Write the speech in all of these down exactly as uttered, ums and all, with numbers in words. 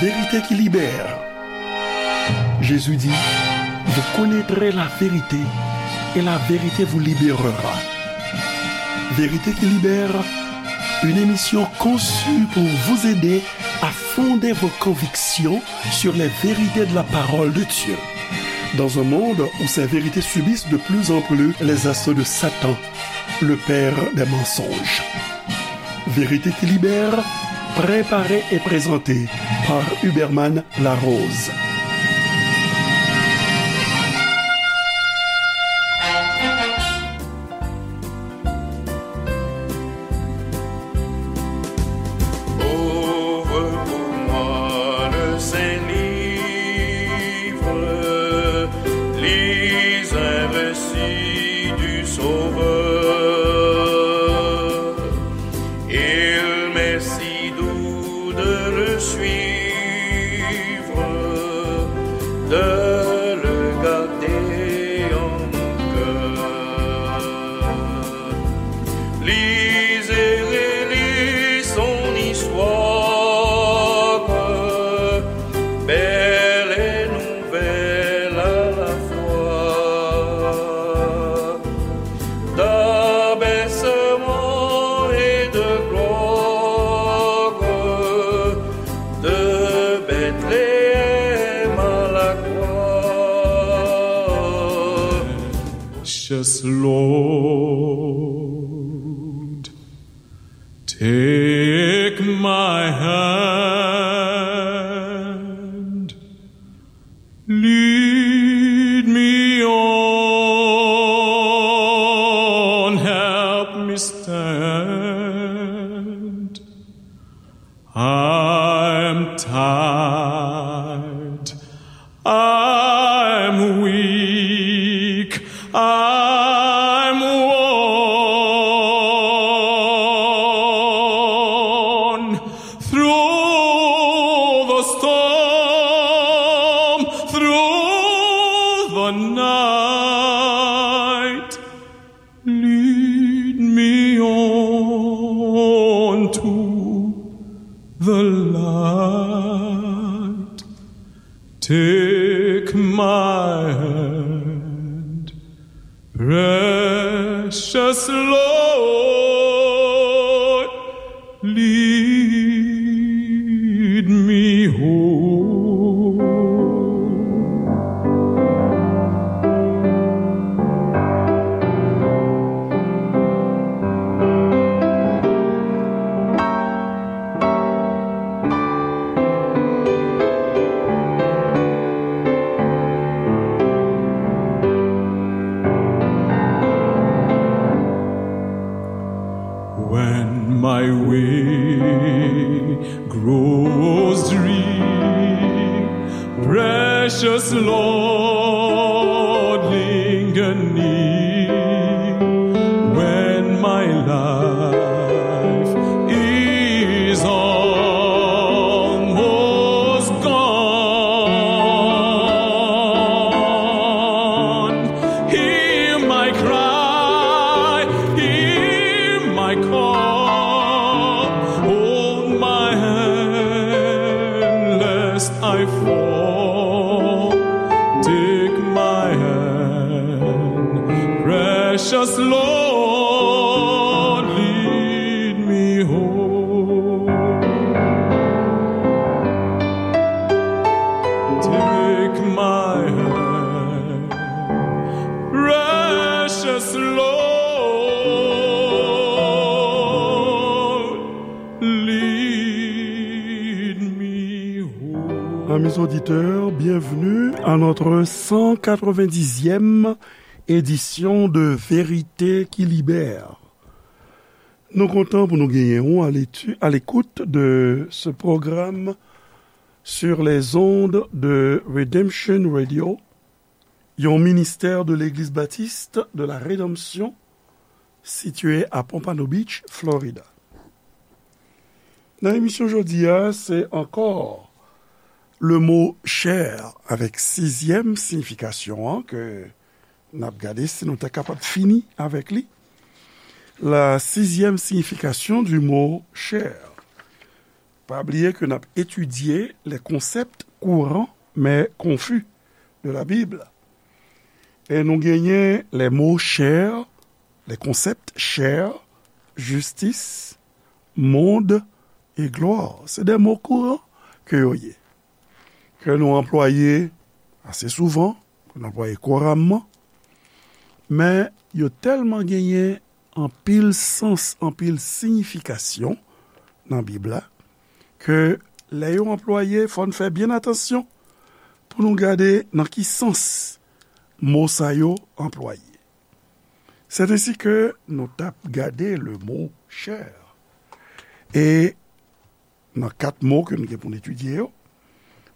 Vérité qui libère. Jésus dit, vous connaîtrez la vérité et la vérité vous libérera. Vérité qui libère, une émission conçue pour vous aider à fonder vos convictions sur les vérités de la parole de Dieu. Dans un monde où ces vérités subissent de plus en plus les assauts de Satan, le père des mensonges. Vérité qui libère, préparée et présentée par Huberman Larose. Ouvre pour moi le saint livre, lis un récit du Sauveur. Il m'est si doux de le suivre, de le garder en mon cœur. Lisez, relisez son histoire, belle et nouvelle à la fois. D'abaissement et de gloire, de Bethléem à la croix. Precious Lord, take my hand. Lead me on, help me stand. I'm tired, I'm weak, I'm worn. Through the storm, through the night, lead me on to the light. Take my hand, precious Lord, lead me home. When my way grows drear, precious Lord, linger near. When my life is almost gone, hear my cry, hear my call, hold my hand lest I fall. Take my hand, precious Lord, lead me home. Take my hand, precious Lord, lead me home. Amis auditeurs, bienvenue à notre cent quatre-vingt-dixième édition de Vérité qui Libère. Nou kontan pou nou genyen ou à l'étu-, à l'écoute de ce programme sur les ondes de Redemption Radio, yon ministè de Legliz Batis de la Redanmsyon sitiye a Pompano Beach, Florida. Nan emisyon jodi a, se ankò le mo chè avèk sizyèm siyifikasyon an ke n ap gade si nou ta kapab fini avèk li. La sixième signification du mot chair. Pa bliye ke n ap etidye les concepts courants mais confus de la Bible. E nou genyen les mots chers, les concepts chers, justice, monde et gloire. Se de mo kouran ke yo ye, ke nou anplwaye ase souvan, ke nou anplwaye kouramman, men yo tèlman genyen anpil sans, anpil siyifikasyon nan Bib la, ke lè yo anplwaye, fò n fè byen atansyon pou nou gade nan ki sans mo sa yo anplwaye. C'est ainsi que nou t ap gade le mot chair. E nan kat mo ke nou gen pou n etidye yo,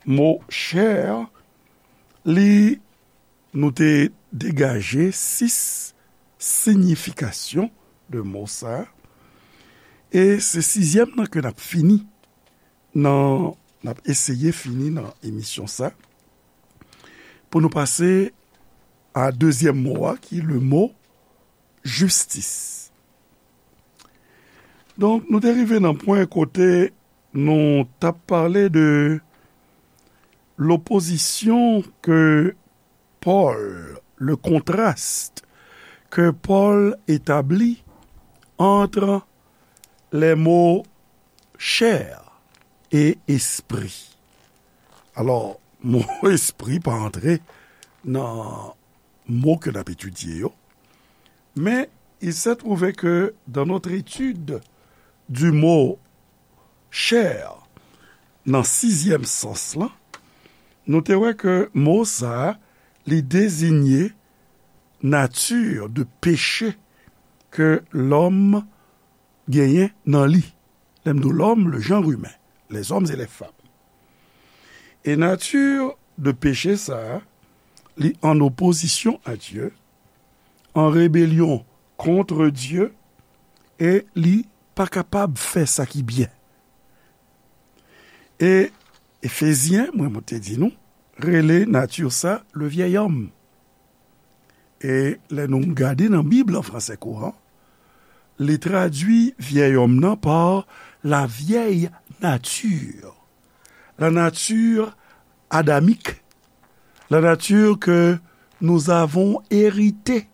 mo chair, li, nou te degaje sis siyifikasyon de mo sa. E se sizyèm nan ke n ap fini nan, n ap eseye fini nan emisyon sa, pou nou pase a dezyèm mo a, ki le mo jistis. Donk, nou te rive nan pwen kote nou t ap pale de lopozisyon ke Pòl, le contraste que Paul établit entre les mots chair et esprit. Alò, mo espri pa antre nan mo ke n ap etidye yo, men il s'est trouvé que dans notre étude du mot chair, nan sizyèm sans lan, nou te wè ke mo sa a, li dezinye nati de peche ke lòm genyen nan li. Lè m di w lòm, le genre humain, les hommes et les femmes. E nati de peche sa a, li an opozisyon a Dye, an rebelyon kont Dye, e li pa kapab fè sa ki byen. E Efezyen, mwen, mwen te di nou, rele nati sa le vieil homme. E lè nou gade nan Bib an fransè kouran, li tradui vieil homme nan pa la vieille nature, la nature adamique, la nature que nous avons héritée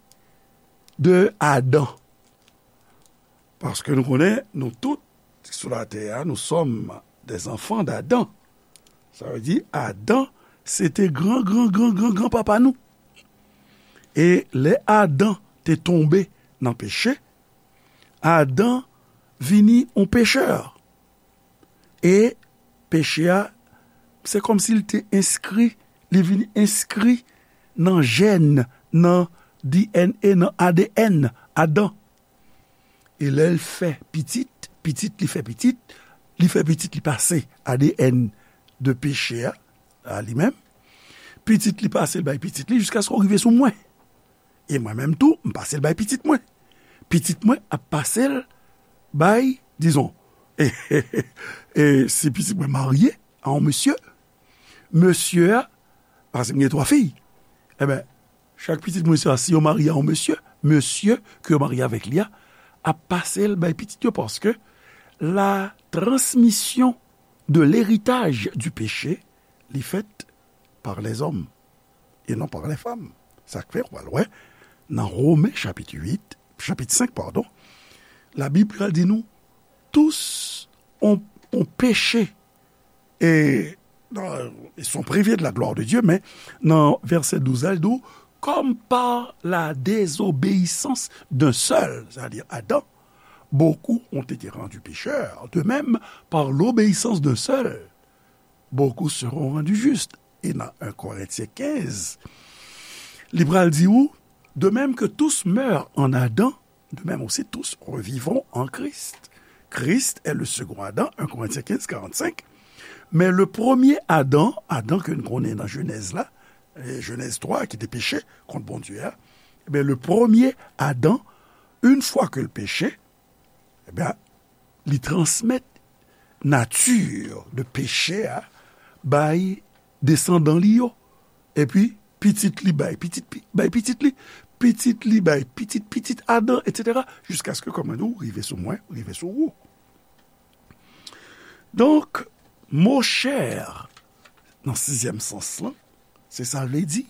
de Adam. Paske nou konnen, nou tout ki sou latè a, nous sommes des enfants d'Adam. Sa vle di, Adan, se te gran, gran, gran, gran, gran papa nou. E lè Adan te tonbe nan peche, Adan vini yon pechè. E peche a, se kòmsi li te enskri, li vin enskri nan jèn, nan D N A, nan A D N Adan. E lè l fè pitit, pitit li fè pitit, li fè pitit li pase A D N de peche a, a li menm. Pitit li pase l bay pitit li jiskaske w rive sou mwen. E mwen menm tou, m pase l bay pitit mwen. Pitit mwen ap pase l bay, dizon, e, e, e, si pitit mwen marye a yon mesye, mesye a, paske m gen twa fi, enben, chak pitit mwen sa, si yo marye a yon mesye, mesye ke yo marye avèk li a, ap pase l bay pitit yo, paske la transmission de l'héritage du péché, li fèt par les hommes et non par les femmes. Sa k fè, w pral wè, nan Women chapit uit, chapit senk, padon, Labib pral di nou, tous ont, ont péché et, euh, ils sont privés de la gloire de Dieu, men nan vèsè douz la, li di w, comme par la désobéissance d'un seul, c'est-à-dire Adam, beaucoup ont été rendus pécheurs. De même, par l'obéissance d'un seul, beaucoup seront rendus justes. E nan en Korentyen kenz, li pral di ou, de même que tous meurent en Adam, de même aussi tous revivront en Christ. Christ est le second Adam, en Korentyen kenz, karannsenk. Men le premye Adan, Adan ke nou konnen nan Jenèz la, e Jenèz twa, ki te peche kont Bondye a, ebyen, le premye Adan, une fois que l peche, ebyen, li transmèt nati de peche a bay desandan li yo. Epi, pitit li bay pitit, pi-, bay pitit li, pitit li bay pitit, pitit Adan, etsetera, jiskaske, kòm mwen di w, rive sou mwen, rive sou ou. Donk, mo chè, nan sizyèm sans lan, se sa l vle di,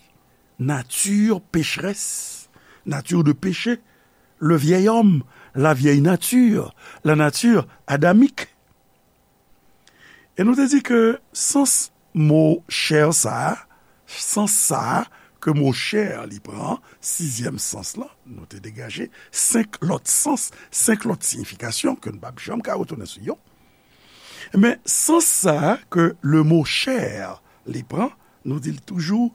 nature pécheresse, nature de péché, le vieil homme, la vieille nature, la nature adamique. E nou te di ke sans mo chè sa a, sans sa a ke mo chè li pran, sizyèm sans lan, nou te degaje senk lòt sans, senk lòt siyifikasyon ke n p ap janm ka retounen sou yo. Men sans sa a ke le mo chè li pran, nou di l toujou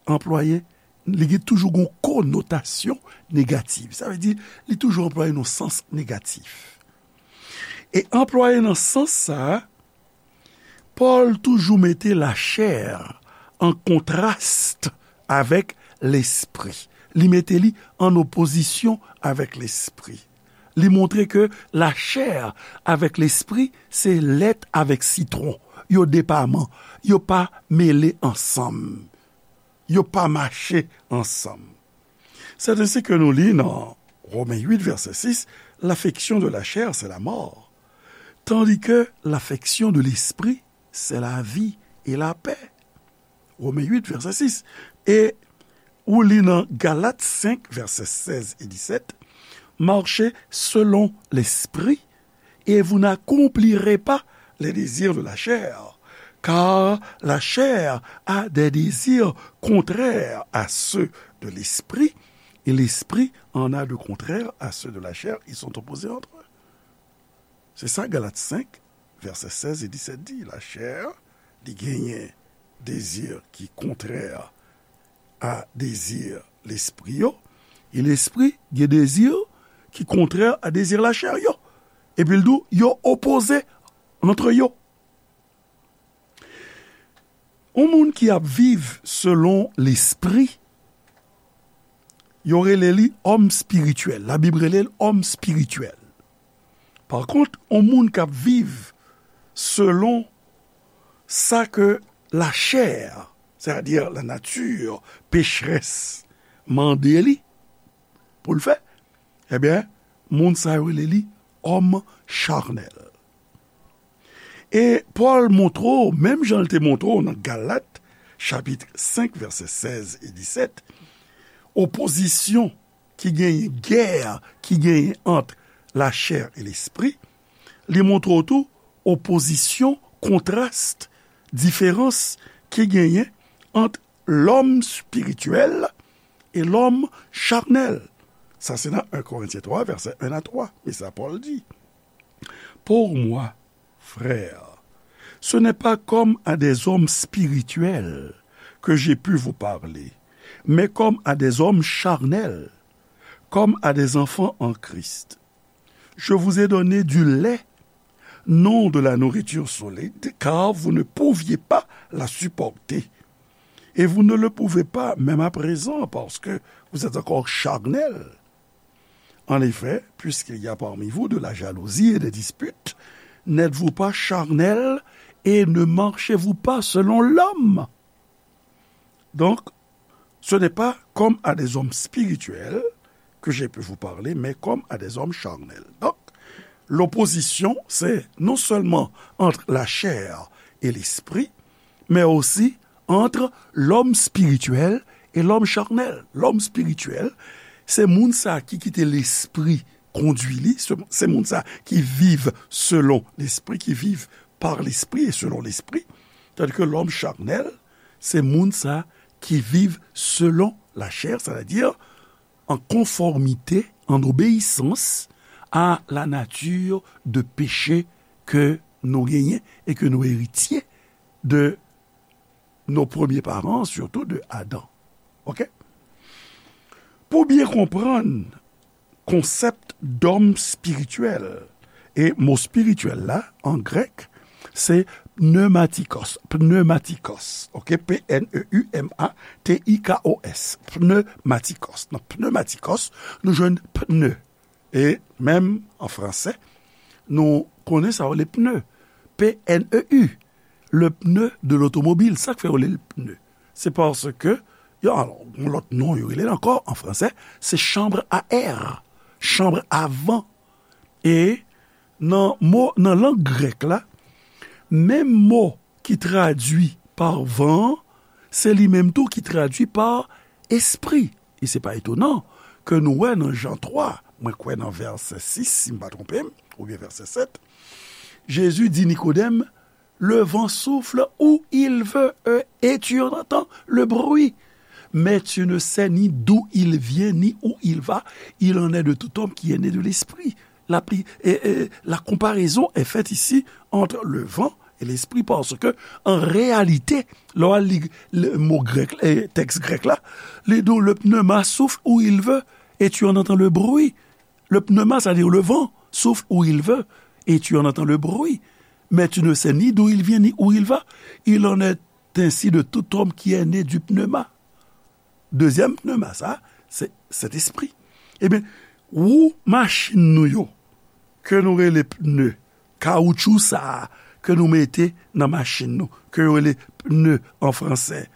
anplwaye, li gen toujou gon konotasyon negatif. Sa vle di, li toujou anplwaye nan sans negatif. E anplwaye nan sans sa a, Pòl toujou mete lachè an kontras avèk lespri. Li mete li an opozisyon avèk lespri. Li montre ke lachè avèk lespri se lèt avèk sitwon. Yo depaman, yo pa mele ansanm. Yo pa mache ansanm. C'est ainsi que nous lit dans Romains huit, verset six, l'affection de la chair, c'est la mort, tandis que l'affection de l'esprit, c'est la vie et la paix. Romains huit, verset six. E ou li nan Galat senk, verset seize et dix-sept, marchez selon l'esprit, et vous n'accomplirez pas les désirs de la chair, car la chair a des désirs contraires à ceux de l'esprit, et l'esprit en a de contraires à ceux de la chair, ils sont opposés entre eux. Se sa Galat senk, vèsè sèz e disèt di. Lachè, li genyen dezi ki kontrè a dezi lespri yo, e lespri gen dezi ki kontrè a dezi lachè yo. Epi l di w, yo opoze antre yo. Yon moun ki ap viv selon lespri, yo rele li òm espirityèl. Labib rele l òm espirityèl. Pa kont, yon moun k ap viv selon sa ke lachè, sètadi lanati pechrès, mande li pou l fè, ebyen, moun sa yo rele li òm chanèl. E Pòl montre w, menm jan l te montre w nan Galat, chapit senk, vèsè sèz e disèt, opozisyon ki genyen, gè ki genyen ant lachè e lespri, li montre w tou opozisyon, kontras, diferans ki genyen ant lòm espirityèl e lòm chanèl. Sa se nan en Korentyen twa, vèsè en a twa. Men sa Pòl di. Pour moi, frères, ce n'est pas comme à des hommes spirituels que j'ai pu vous parler, mais comme à des hommes charnels, comme à des enfants en Christ. Je vous ai donné du lait, non de la nourriture solide, car vous ne pouviez pas la supporter. Et vous ne le pouvez pas, même à présent, parce que vous êtes encore charnels. En effet, puisqu'il y a parmi vous de la jalousie et des disputes, n'êtes-vous pas charnels et ne marchez-vous pas selon l'homme? Donc, ce n'est pas comme à des hommes spirituels que j'ai pu vous parler, mais comme à des hommes charnels. Donc, l'opposition, c'est non seulement entre la chair et l'esprit, mais aussi entre l'homme spirituel et l'homme charnel. Lòm espirityèl, se moun sa ki kite lespri kondui li, se, se moun sa ki viv selon lespri, ki viv par l'esprit et selon l'esprit, tandis que l'homme charnel, se moun sa ki viv selon lachè, sètadi an konfòmite, an obeyisans a la nature de péché ke nou genyen e ke nou eritye de nos premiers parents, surtout de Adan. Oke? Pou byen konprann konsèp dòm espirityèl, e mo espirityèl la, an grèk, se pneumatikos, pneumatikos, oke? P N E U M A T I K O S, pneumatikos. Nan pneumatikos, nou jwenn pneu. E menm an fransè, nou konnen sa yo rele pneu. P N E U, le pneu de l'automobile. Sa k fè yo rele l pneu? Se paske, yo, alò, yon lòt non yo rele l ankò an fransè, se chambre à air, chambre à vent. E nan mo, nan lang grèk la, Menm mo ki tradui pa van an, se li menm tou ki tradui pa espri. E se pa etonan ke nou wè nan Jan twa, mwen kwè nan vèsè sis, si m pa twonpe m, oubyen vèsè sèt, Jezi di Nikodèm, le vent souffle où il veut, euh, et tu en entends le bruit. Mais tu ne sais ni d'où il vient, ni où il va. Il en est de tout homme qui est né de l'esprit. La, pli- et- et la comparaison est faite ici entre le vent et l'esprit, parce que, en réalité, lè w al li le mo grèk, eh, tèks grèk la, li di w, le pneuma souffle où il veut, et tu en entends le bruit. Le pneuma, c'est-à-dire le vent, souffle où il veut, et tu en entends le bruit, mais tu ne sais ni d'où il vient, ni où il va. Il en est ainsi de tout homme qui est né du pneuma. Dezyèm pneuma, sa, se Sentespri. Ebyen, wou machin nou yo, ke nou rele pne, kawoutchou sa a, ke nou mete nan machin nou, ke yo rele pne an fransè,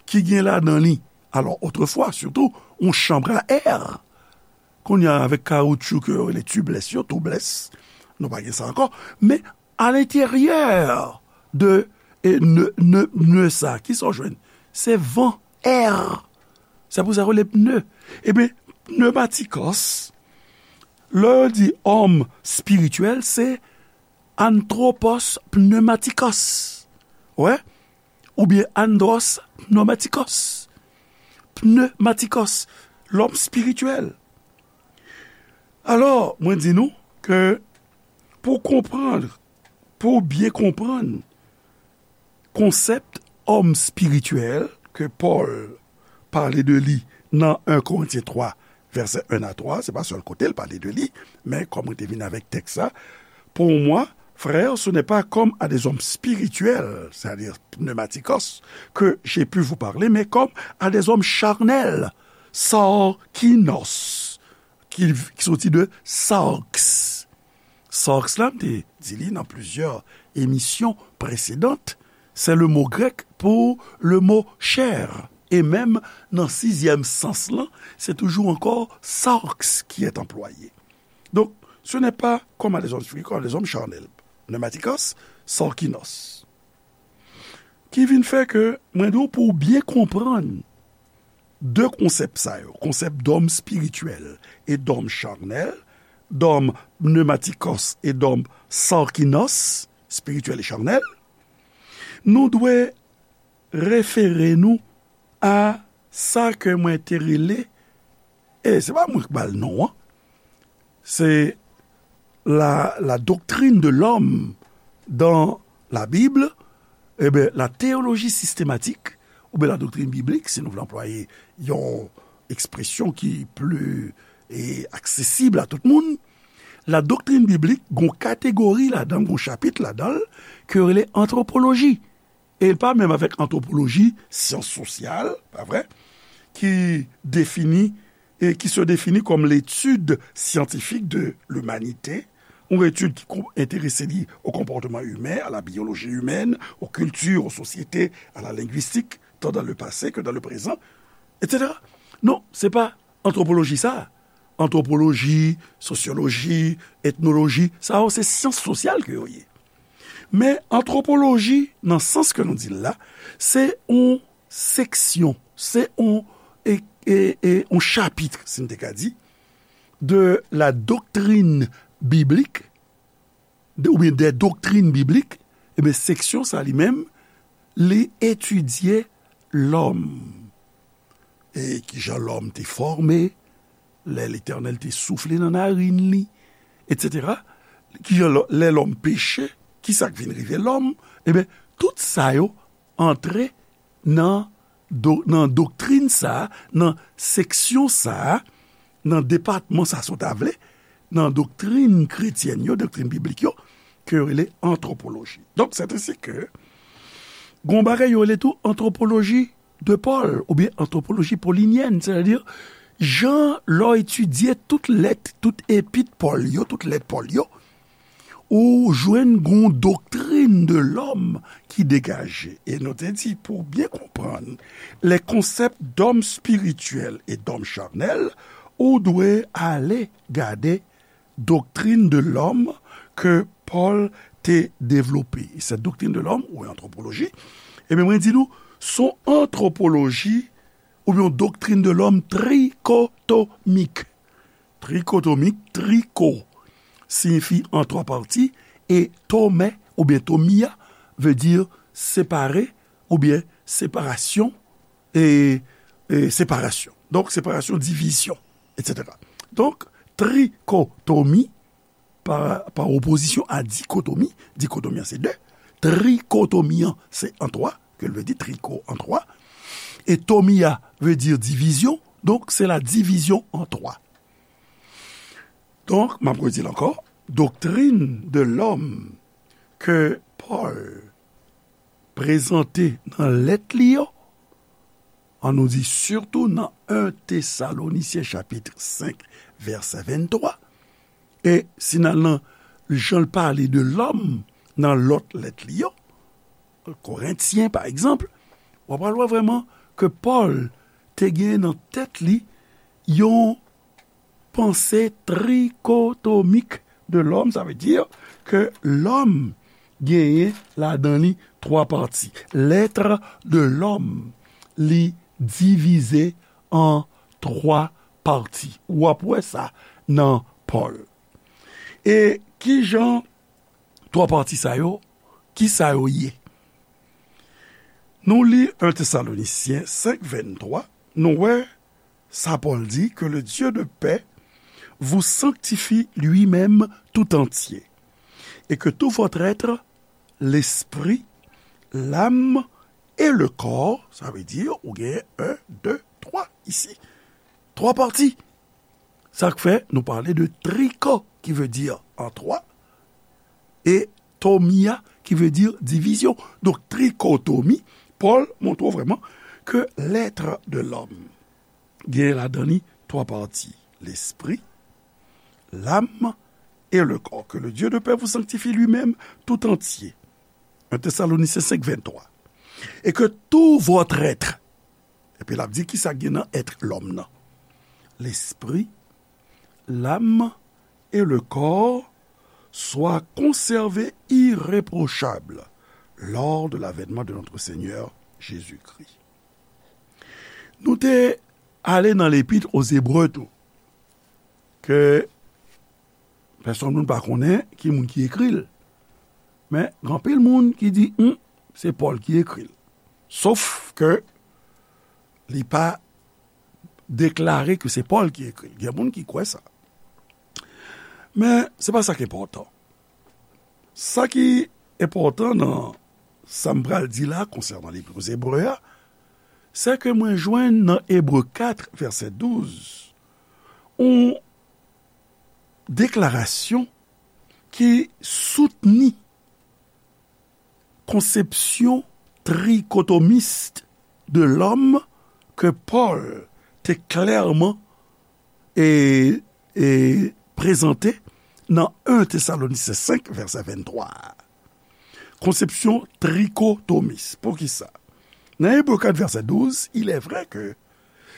ki gen ladan li, alò, otrefwa, sitou, yon chanm a è. Kounye a, avèk kawoutchou ke yo rele tubeless yo, tubeless, nou pa gen sa ankò. Men, alenteryè de e, ne, ne, ne sa, ki sa w jwenn? Se van, è. Se pou sa yo rele pne. Ebyen, pneumatikos, lè yo di òm espirityèl, se anthropos pneumatikos. Wè? Oubyen andros pneumatikos. Pneumatikos, lòm espirityèl. Alò, mwen di nou ke pou konprann, pou byen konprann konsèp òm espirityèl ke Pòl pale de li nan en Korentyen twa, vèsè en a twa, se pa sèl kote l pale de li, men kòm mwen te vin avèk tèks la, pour moi, frères, ce n'est pas comme à des hommes spirituels, c'est-à-dire pneumatikos, que j'ai pu vous parler, mais comme à des hommes charnels, sarkinos, ki, ki soti de sarx. Sarx la, m te di li nan plizyè emisyon presedan, se le mo grèk pou le mo chè. E menm nan sizyèm sans lan, se toujou ankò sarx qui est employé. Donc, ce n'est pas comme à des hommes spirituels, comme à des hommes charnels. Pneumatikos, sarkinos. Ki vin fè ke mwen di w pou w byen konprann de konsèp sa yo, konsèp dòm espirityèl e dòm charnèl, dòm pneumatikos e dòm sarkinos, espirityèl e charnèl, nou dwe refere nou a sa ke mwen te rele, e se pa mwen k ba l non an, c'est la, la doctrine de l'homme dans la Bible, eh bien, la théologie systématique, oubyen la doctrine biblique, si nou vle anplwaye yon ekspresyon ki pli, e, aksesib a tout moun, la doctrine biblique, gon kategori ladan, gon chapit ladan l, ke yo rele antwopoloji. E l pa menm avèk antwopoloji, syans sosyal, pa vre, ki defini, e qui se définit comme l'étude scientifique de l'humanité, yon etid ki kon- enterese li au comportement humain, à la biologie humaine, aux cultures, aux sociétés, à la linguistique, tant dans le passé que dans le présent, et cetera. Non, se pa antwopoloji sa. Antwopoloji, sosyoloji, etnoloji, sa yo se syans sosyal ke yo ye. Men antwopoloji, nan sans ke nou di l la, se yon seksyon, se yon, e, e, e, yon chapit, si n te ka di, de la doctrine biblique, de, oubyen des doctrines bibliques, ebyen, seksyon sa li menm, li etidye lòm. E kijan lòm te fòme, lè Letènèl te soufle nan narin li, etsetera. Kijan lò- lè lòm peche, kisa k vin rive lòm, ebyen, tout sa yo antre nan, do, nan doktrin sa a, nan seksyon sa a, nan depatman sa a, si w ta vle, nan doktrin kretyèn yo, doktrin biblik yo, ke yo rele antwopoloji. Donk, c'est ainsi que, gon bagay yo rele tou antwopoloji de Paul, oubyen antwopoloji polinyèn, sètadi, jan lè w etidye tout lèt, tout epit Pòl yo, tout lèt Pòl yo, ou jwenn gon doktrin de lòm ki degaje. E nou te di, pou byen konprann les concepts d'homme spirituel et d'homme charnel, ou dwe ale gade doktrin de lòm ke Pòl te devlope. Cette doctrine de l'homme, ou antwopoloji, ebyen, mwen di nou, se yon antwopoloji oubyen yon doctrine de l'homme trikotomik. Trikotomik, triko siyifi an twa pati, e tome oubyen tomia vle di separe oubyen separasyon, e, e separasyon. Donk, separasyon, divizyon, etsetera. Donk, trikotomi, pa, pa opozisyon a dikotomi, dikotomi an se de, trikotomi an se an twa, ke l vle di triko an twa, e tomia vle di divizyon, donk se la divizyon an twa. Donk, m ap redi l ankò, doctrine de l'homme ke Pòl prezante nan lèt li yo, an nou di sitou nan en Tesalonisyen chapit senk, vèsè venntwa, e si n al nan jan l pale de lòm nan lòt lèt li yo, Korentyen, pa egzanp, w ap al wè vrèman ke Pòl te gen nan tèt li yon panse trikotomik de lòm, sa vle di ke lòm genyen ladan li twa pati. L'être de l'homme, li divize an twa pati. W ap wè sa nan Pòl. E kijan twa pati sa yo, ki sa yo ye? Nou li en Tesalonisyen senk venntwa, nou wè sa Pòl di, que le Dieu de paix vous sanctifie lui-même tout entier, et que tout votre être, l'esprit, l'âme et le corps, sa vle di, ou gen en, de, twa isi. Twa pati. Sa k fè nou pale de triko, ki vle di an twa, e tomia, ki vle di divizyon. Donk, trikotomi, Pòl montre w vrèman ke l'être de l'homme gen ladan li twa pati, l'esprit, l'âme et le corps. Que le Dieu de paix vous sanctifie lui-même tout entier. En Tesalonicyen senk venntwa. Et que tout votre être, epi l ap di kisa k gen nan èt lòm nan, l'esprit, l'âme et le corps soient conservés irréprochables lors de l'avènement de notre Seigneur Jésus-Christ. Nou te ale nan Lepit o Zebre tou, ke pèsonn moun pa konnen ki moun ki ekri l. Men, gen anpil moun ki di, hmm, se Pòl ki ekri l. Sof ke li pa deklare ke se Pòl ki ekri l. Gen moun ki kwè sa. Men, se pa sa k enpòtan. Sa ki enpòtan nan sa m pral di la konsènan Lepit o Zebre a, se ke mwen jwenn nan Ebre kat, vèsè douz, yon deklarasyon ki soutni konsepsyon trikotomis de lòm ke Pòl te klèman e, e prezante nan en Tesalonisyen senk, vèsè venntwa a. Konsepsyon trikotomis. Poukisa? Nan Ebre kat, vèsè douz, il est vrai que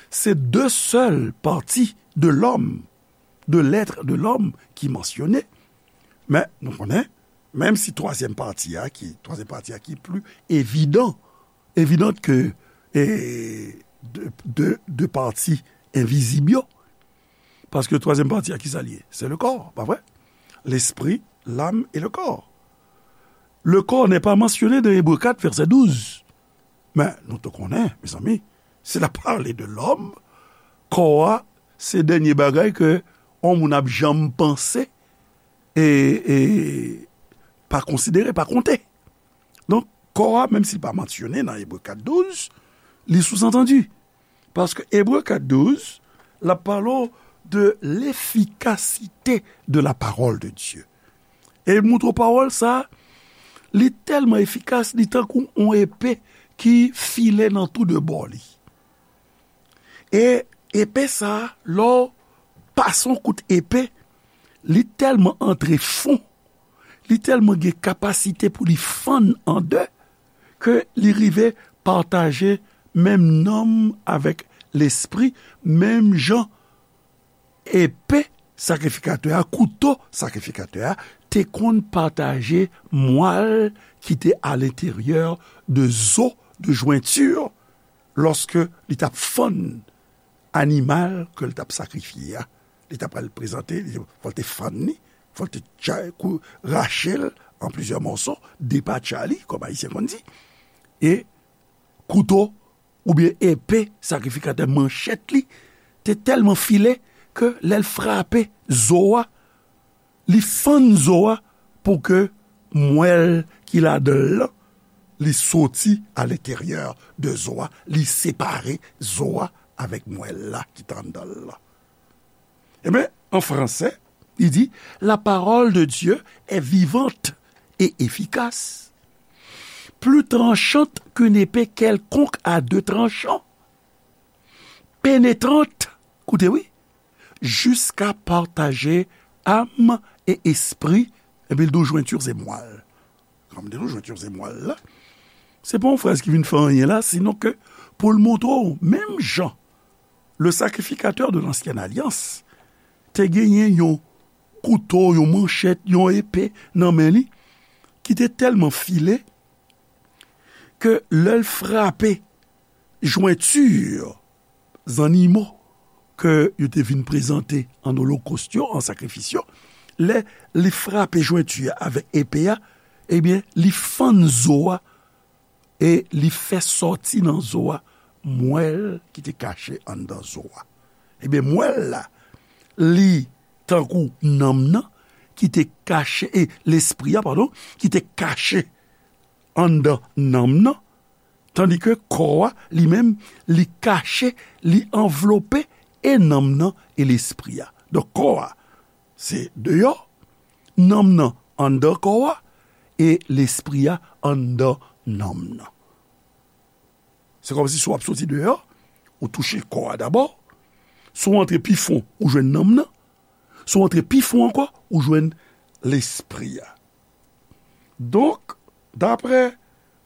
c'est deux seules parties de l'homme, de l'être de l'homme ki mansyone, men nou konnen, menm si twazyèm pati a ki, twazyèm pati a ki pli evidan, evidant ke, e, de, de, de pati envizib yo, paske twazyèm pati a, kisa l ye? Se le corps, pa vre? L'esprit, l'âme et le corps. Le corps n'est pas mentionné dans Ebre kat, vèsè douz. Men, nou tou konnen, mezanmi, si l ap pale de lòm, kò a, se dènye bagay ke yon moun ap janm panse e, e pa konsidere, pa konte. Donk, kò a, menm si l pa mansyone nan Ebre kat douz, li souzantandi. Paske Ebre kat douz, l ap pale w de l'efficacité de la parole de Dieu. E l montre w pawòl sa, li tèlman efikas, li tankou yon epe ki file nan tou de bò li. E epe sa, lè w pase yon kout epe, li tèlman antre fon, li tèlman gen kapasite pou li fann an de, ke li rive pataje menm nanm avèk lespri, menm jan epe sakrifikatè a, kouto sakrifikatè a, te konn pataje mwal ki te alenteryè de zo, de jwenti, lòske li t ap fann animal ke l t ap sakrifye a. Li t ap al prezante, li, fò l te fann li, fò l te tcha-, kou-, rache l an plizyè mòso, depatcha li, kòm Ayisyen konn di. E kouto oubyen epe sakrifikatè, manchèt li, te tèlman file ke lè l frape zo a, li fann zo a pou ke mwèl ki ladan l lan, li soti alenteryè de zo a, li separe zo a avèk mwèl la ki t anndan l lan. Ebyen, an fransè, li di, La parole de Dieu est vivante et efficace, plus tranchante qu'une épée quelconque à deux tranchants, pénétrante, koute wi, jusqu'à partager âme et esprit, epi l di w jwenti se mwal. Kan m di nou jwenti se mwal la, se pa yon fraz ki vin fè anyen la, sinon ke pou l montre w, menm jan le sacrificateur de l'ancienne alliance te genyen yon kouto, yon manchèt, yon epe nan men li, ki te tèlman file ke lè l frape jwenti zannimo ke yo te vin prezante an olokòs yo, an sakrifis yo, lè li frape jwenti a avèk epe a, ebyen, li fann zo a e li fè sòti nan zo a mwèl ki te kache anndan zo a. Ebyen, mwèl la, li tankou nanm nan ki te kache, e lespri a, padon, ki te kache anndan nanm nan, tandike kò a, li menm, li kache, li anvlope e nanm nan e lespri a. Donk, kò a, se deyò, nanm nan anndan kò a, e lespri a anndan nanm nan. Se kòmsi si w ap soti deyò, ou touche kò a dabò, si w antre pi fon, ou jwenn nanm nan, si w antre pi fon ankò, ou jwenn lespri a. Donk, daprè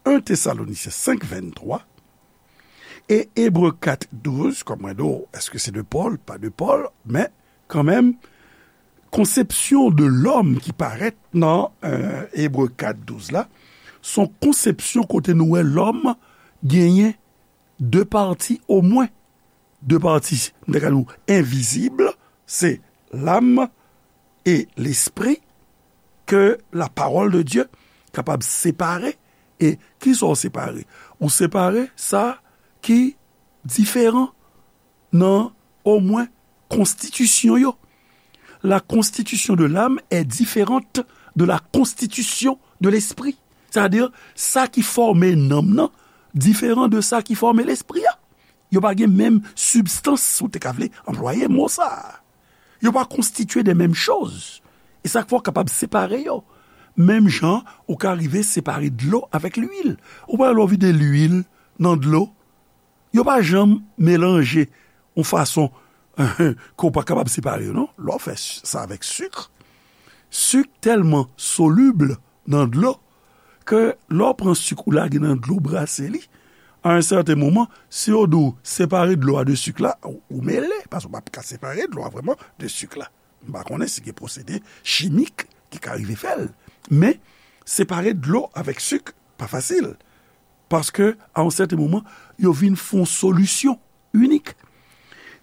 en Tesalonisyen senk venntwa e Ebre kat douz, kòm mwen di w, èske se de Pòl? Pa de Pòl, men kanmenm, konsepsyon de lòm ki parèt nan, euh, Ebre kat douz la, se yon konsepsyon kote nou wè lòm genyen de pati omwen. De pati, m ta ka di w, envizib, se lam e lespri, ke la parole de Dieu kapab separe. E kisa w separe? Ou separe sa ki diferan nan omwen konstitisyon yo. La constitution de l'âme est différente de la constitution de l'esprit. Sètadi, sa ki fòme nanm nan diferan de sa ki fòme lespri a. Yo pa gen menm sibstans, si w te ka vle anplwaye mo sa a. Yo pa konstitye de menm choz. E sa k fè w kapab separe yo. Menm jan ou ka rive separe dlo avèk lwil. Ou pa wè lè w vide lwil nan dlo, yo pa janm melanje yon fason ke w pa kapab separe yo, non. Lè w fè s-, sa avèk sik, sik tèlman solib nan dlo ke lè w pran sik ou lage nan dlo, w brase li, a yon sèten moman, si yo di w separe dlo a de sik la, ou, ou mele, paske w p ap ka separe dlo a vrèman de sik la. M pa konnen si gen pwosede chimik ki ka rive fè l. Men, separe dlo avèk sik, pa fasil. Paske, a yon sèten moman, yo vin fè yon solisyon inik.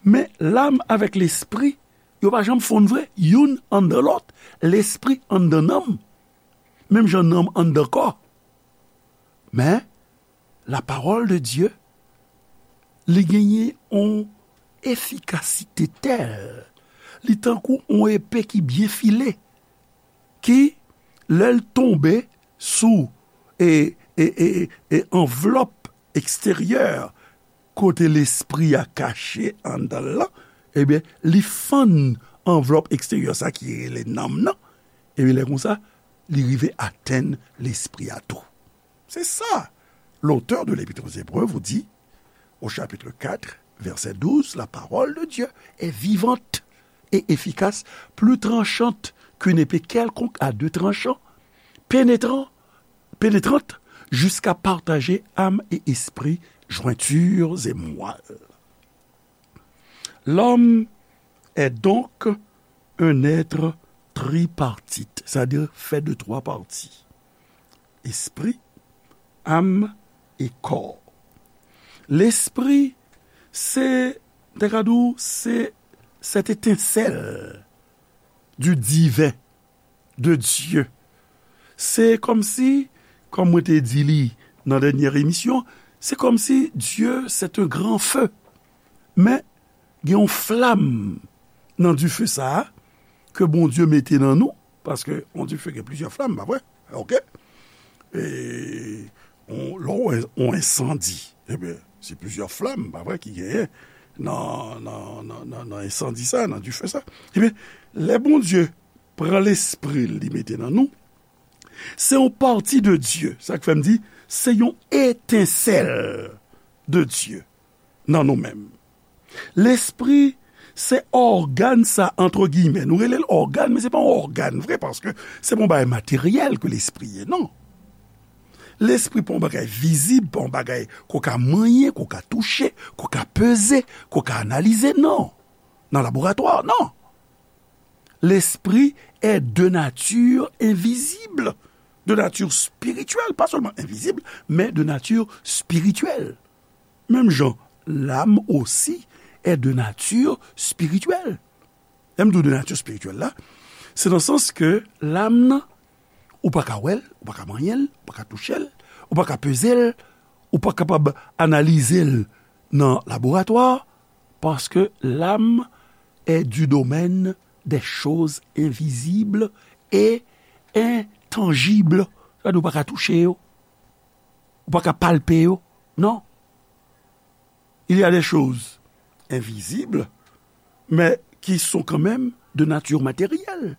Men, lam avèk lespri, yo pa janm fonn vre, youn anndan lòt, lespri anndan nanm, menm jan nanm anndan kò. Men, la parole de Dieu, li genyen yon efikasite tèl, li tankou yon epe ki byen file, ki, lè l tonbe sou, e, e, e, e anvlòp eksteryè, kote lespri a kache anndan l lan, ebyen, li fann anvlòp eksteryè sa ki rele nanm nan, ebyen, lè konsa, li rive atenn lespri a tou. C'est ça. L'auteur de l'Épître aux Hébreux vous dit, au chapitre quatre, verset douze, la parole de Dieu est vivante et efficace, plus tranchante qu'une épée quelconque à deux tranchants, pénétrant, pénétrante jusqu'à partager âme et esprit, jointures et moelle. L'homme est donc un être tripartite, c'est-à-dire fait de trois parties. Espri, am e kò. Lespri, se, te ka di w, se cette étincelle du divin, de Dieu. Se kòmsi, kòm mwen te di li nan dènyè emisyon, se kòmsi Dieu, c'est un grand feu. Men, gen yon flam nan dife sa a, ke Bondye mete nan nou, paske yon dife gen plizyè flam, pa vre? Oke? E, on, lè w wè yon ensandi, ebyen, se plizyè flam, pa vre, ki genyen nan, nan, nan, nan, nan ensandi sa, nan dife sa. Ebyen, lè Bondye pran lespri l, li mete nan nou, se yon pati de Dye. Sa k fè m di, se yon etensèl de Dye nan nou menm. Lespri, se ògàn sa, antre giyimè. Nou rele l ògàn, men se pa yon ògàn vre, paske se pa yon bagay materyèl ke lespri ye, non. Lespri pa yon bagay vizib, pa yon bagay ke w ka manyen, ke w ka touche, ke w ka peze, ke w ka analize, non. Nan laboratwa, non. L'esprit est de nature invisible, de nature spirituelle, pas seulement invisible, mais de nature spirituelle. Menm jan, l'âme aussi est de nature spirituelle. Lè m di w de nature spirituelle la, se nan sans ke l'âme nan, ou pa ka wè l, ou pa ka manyen l, ou pa ka touche l, ou pa ka peze l, ou pa kapab analize l nan laboratwa, paske l'âme est du domaine des choses invisibles et intangibles. Sa di ou pa ka touche yo, ou pa ka palpe yo, non. Il y a des choses invisibles, mais qui sont quand même de nature matérielle.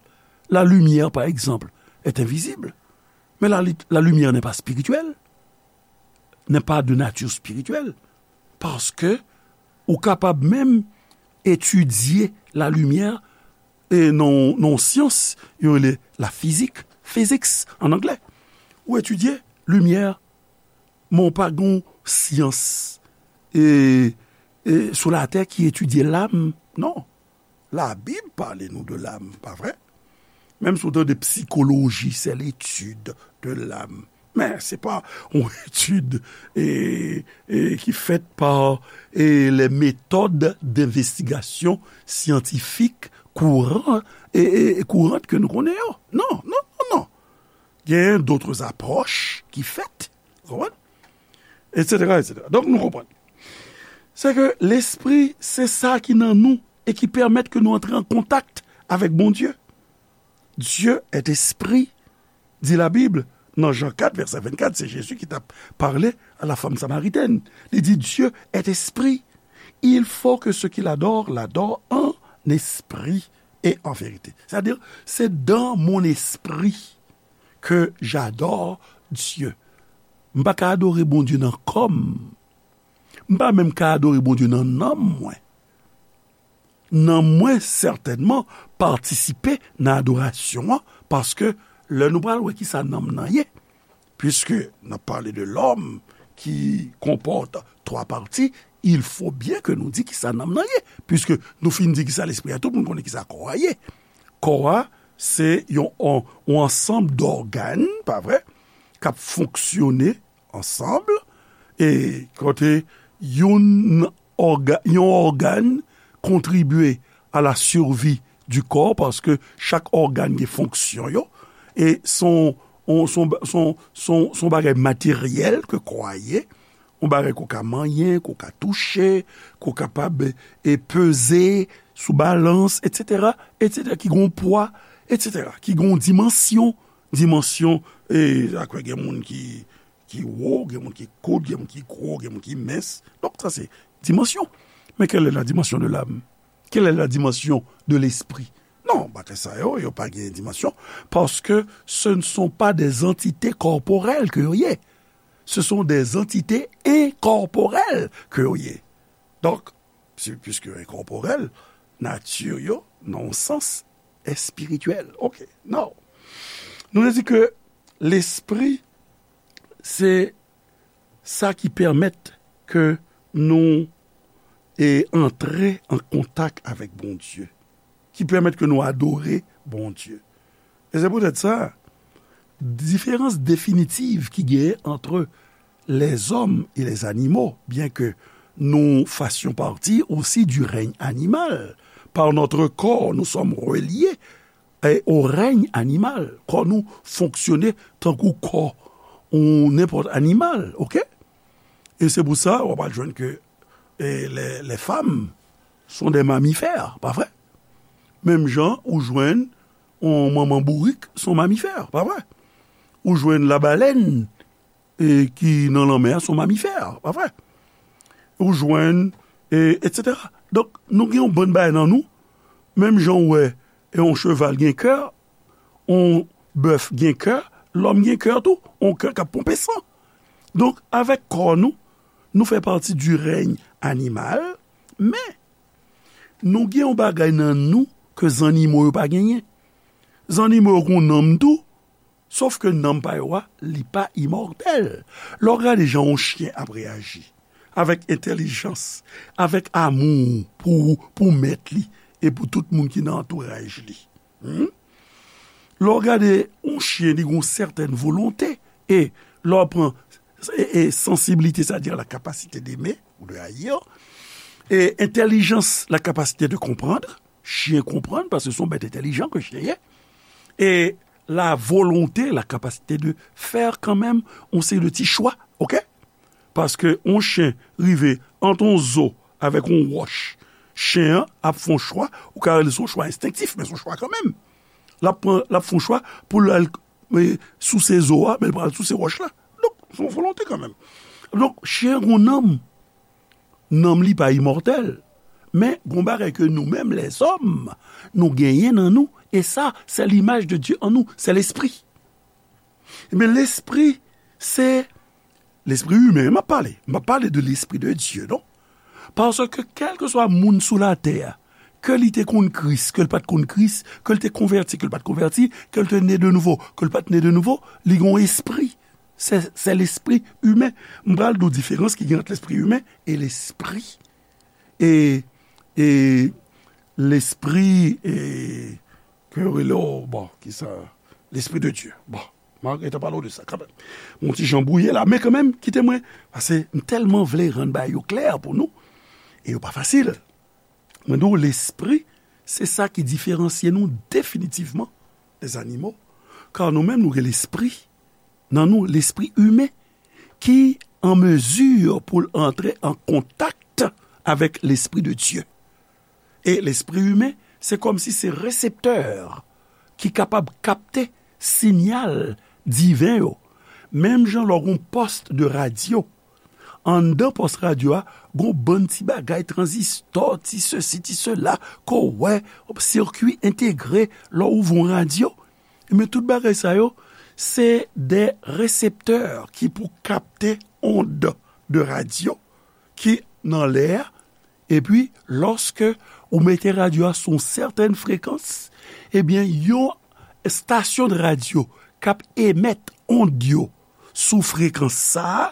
La lumière, par exemple, est invisible, mais la, la lumière n'est pas spirituelle, n'est pas de nature spirituelle, paske ou kapab menm etidye la lumière e nan, nan syans, yo rele la fizik, physics an anglè. Ou etidye limyè, men w pa gen syans e, e sou latè ki etidye lam, non. Labib pale nou de lam, pa vre? Menm si w tande psychologie, c'est l'étude de l'âme. Men se pa yon etid e, e, ki fèt pa e, les méthodes d'investigation scientifique kouran, e, e, e kourant ke nou konnen yo. Non, non, non, non. Gen d'autres approches ki fèt, ou konprann? Etsetera, etsetera. Donk, nou konprann. Se ke lespri, se sa ki nan nou e ki pèmèt ke nou antre an kontak avèk Bondye. Dieu est esprit, dit la Bible. Nan Jan kat, vèsè vennkat, se Jezi ki t ap pale a la fanm samaritèn. Li di, Dieu est esprit. Il faut que ceux qui l'adorent l'adorent en esprit et en vérité. C'est-à-dire, c'est dans mon esprit que j'adore Dieu. M pa ka adore Bondye nan kò m. M pa menm ka adore Bondye nan nanm mwen. Nanm mwen sètènman patisipe nan adorasyon an, paske lè nou pral wè kisa nanm nan ye, puisque n ap pale de l'homme qui comporte trois parties, il faut bien que nou di kisa nanm nan ye, puisque nou fin di kisa lespri a, tout moun konnen kisa kò a ye. Kò a, se yon, yon, yon ansanm dògàn, pa vre, k ap fonksyone ansanm, e kote youn òga-, yon ògàn kontribye à la survie du corps, paske chak ògàn gen fonksyon yo, e son, on, son, son, son, son bagay materyèl ke kò a ye, yon bagay ke w ka manyen, ke w ka touche, ke w kapab, e, peze sou balans, etsetera, etsetera, ki gen yon pwa, etsetera, ki gen yon dimansyon, dimansyon, e, akwè gen moun ki, ki wo, gen moun ki kout, gen moun ki gwo, gen moun ki mens. Donk, sa se dimansyon. Mais quelle est la dimension de l'âme? Quelle est la dimension de l'esprit? Non, bagay sa yo, yo pa gen dimansyon, paske ce ne sont pas des entités corporelles ke yo ye. Ce sont des entités incorporelles ke yo ye. Donk, si, puisque incorporel, nati yo, nan yon sans, espirityèl. Ok, now. Nou te di ke lespri, se sa ki pèmèt ke nou, e, antre an kontak avèk Bondye. ki pèmèt ke nou adore Bondye. E se poutèt sa, diferans definitiv ki genyen ant lèzòm e lèzanimo, byen ke nous fassions partie aussi du règne animal, par notre corps, nous sommes reliés, e, au règne animal. Kò nou fonksyone tankou kò yon nenpòt animal, oke? E se pou sa, w ap al jwenn ke, e, les, les femmes sont des mammifères, pa vre? Menm jan ou jwenn yon manman bourik, se yon mamifè, pa vre? Ou jwenn labalèn, e, ki nan lanmè a, se yon mamifè, pa vre? Ou jwenn, e, etsetera. Donk, nou gen yon bann bagay nan nou, menm jan ou wè, e, yon cheval gen kè, yon bèf gen kè, lòm gen kè tou, yon kè k ap ponpe san. Donk, avèk kò nou, nou fè pati du règne animal, men nou gen yon bagay nan nou ke zannimo yo pa genyen. Zannimo yo gen yon nanm tou, sof ke nanm pa yo a, li pa imòtèl. Lè w gade jan yon chen ap reyaji, avèk entèlijans, avèk amou pou, pou mèt li e pou tout moun ki nan antouraj li. Hmm? Lè w gade yon chen, li gen yon sètèn volonte, e lè w pran, e, e, sensibilité, c'est-à-dire la capacité d'aimer ou de haïr, e entèlijans, la capacité de comprendre, chen konprann, paske se yon bèt entèlijan ke chen ye, e la volonte, la capacité de faire quand même yon seri de ti chwa, oke? Paske yon chen rive ant yon zo avèk yon wòch, chen an ap fè yon chwa, ou ka rele se yon chwa enstenktif, men se yon chwa kanmenm. L ap pran, l ap fè yon chwa pou l al, e, souse zo a, men l pral souse wòch la. Donk, se yon volonte kanmenm. Donk, chen an gen yon nanm. Nanm li pa imòtèl. Men, gen yon bagay ke nou menm, lèzòm, nou genyen nan nou, e sa, c'est l'image de Dieu en nous, c'est l'esprit. Ebyen, lespri, se lespri imen m ap pale. M ap pale de l'esprit de Dieu, non? Paske kèlkeswa moun sou latè a, ke li te konn Kris, ke l pa t konn Kris, ke l te konvèti, ke l pa t konvèti, ke l te ne de nouvo, ke l pa t ne de nouvo, li gen yon espri. Se, se lespri imen. M pral di w diferans ki gen ant lespri imen e lespri, e, e lespri, e, ke yo rele, o, bon, ki sa? Lespri de Dye. Bon, m a gentan pale w de sa kanmenm. Yon ti jan bwouye la, men kanmenm, kite mwen, paske m tèlman vle rann bagay yo klè pou nou, e yo pa fasil. Mwen di w, lespri, se sa ki diferansye nou definitivman dè zannimo, ka nou menm, nou gen lespri nan nou, lespri imen, ki an mezi pou l antre an kontak avèk lespri de Dye. E lespri imen, se kòmsi se reseptè ki kapab kapte siyal diven yo. Menm jan lè w gen yon pòs de radyo, anndan pòs radyo a, gen yon bann ti bagay, tranzistò, ti sesi, ti sela, ke w wè, sirkui entegre, lè w ouvri yon radyo, men tout bagay sa yo, se de reseptè ki pou kapte ond de radyo ki nan lè a, epi lòske ou mete radyo a sou yon sètèn frekans, ebyen, yon estasyon de radyo k ap emèt ond yo sou frekans sa a,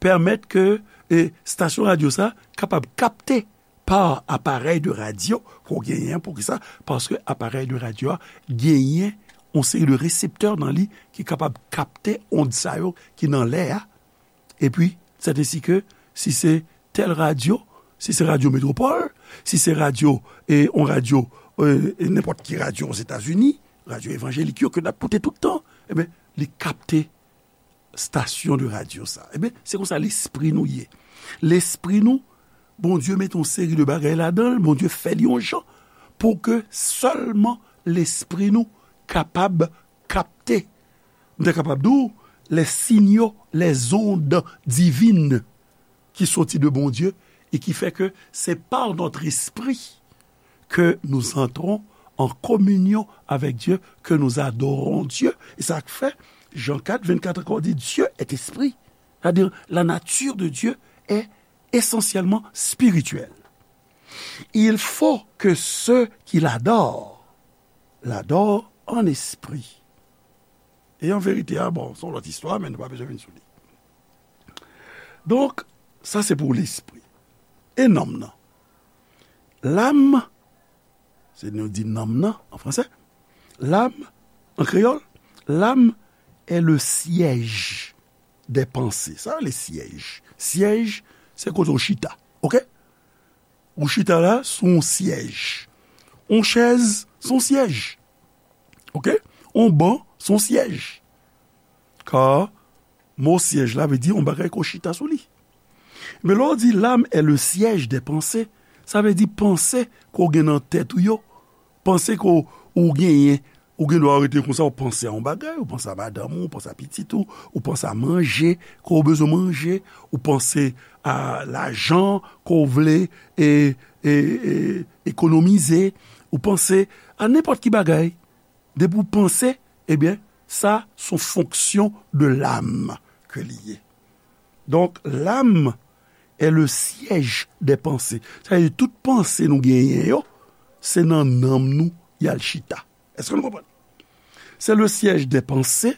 pèmèt ke, e, estasyon radyo sa a kapab kapte pa aparèy de radyo ke w genyen an. Poukisa? Paske aparèy de radyo a genyen yon seri de reseptè nan li ki kapab kapte ond sa yo ki nan lè a. Epi, sèt ensi ke, si se tèl radyo, si se Radyo Metropole, si se radyo, e, yon radyo, e, e nenpòt ki radyo Ozetazini, radyo evanjelik yo ke n ap koute tout tan, ebyen, li kapte estasyon de radyo sa. Ebyen, se konsa lespri nou ye. Lespri nou, Bondye mete yon seri de bagay ladan l, Bondye fè li yon jan pou ke sèlman lespri nou kapab kapte, m ta kapab di w, les signaux, les ondes divines ki soti de Bondye e ki fè ke c'est par notre esprit que nous entrons en communion avec Dieu, que nous adorons Dieu. E sa k fè, Jan kat, vennkat ankò di, Dieu est esprit. C'est-à-dire, la nature de Dieu est essentiellement spirituelle. Il faut que ceux qui l'adorent l'adorent en esprit. E an verite, a bon, se yon lòt istwa, men nou pa bezwen vin sou li. Donk, sa se pou lespri. E nanm nan? L'âme, Se nou di nanm nan, an fransè. L'âme, an kreyòl, l'âme est le siège des pensées. Sa rele syèj. Syèj, se kote w chita. Oke? Ou chita la, se yon syèj. Yon chèz, se yon syèj. Oke? Yon ban, se yon syèj. Ka mo syèj la vle di yon bagay ke w chita sou li. Men lè w di l'âme est le siège des pensées, sa vle di panse ke w gen nan tèt ou yo, panse ke w, ou genyen, ou gen dwa rete konsa, ou panse a yon bagay, ou panse a madanm ou, ou panse a pitit ou, ou panse a manje ke w bezwen manje, ou panse a lajan ke w vle e, e, e, ekonomize, ou panse a nenpòt ki bagay. Depi w panse, ebyen, sa se yon fonksyon de l'âme ke li ye. Donk, l'âme est le siège des pensées. Sa vle di tout panse nou genyen yo, se nan nanm nou y al chita. Èske nou konprann? C'est le siège des pensées,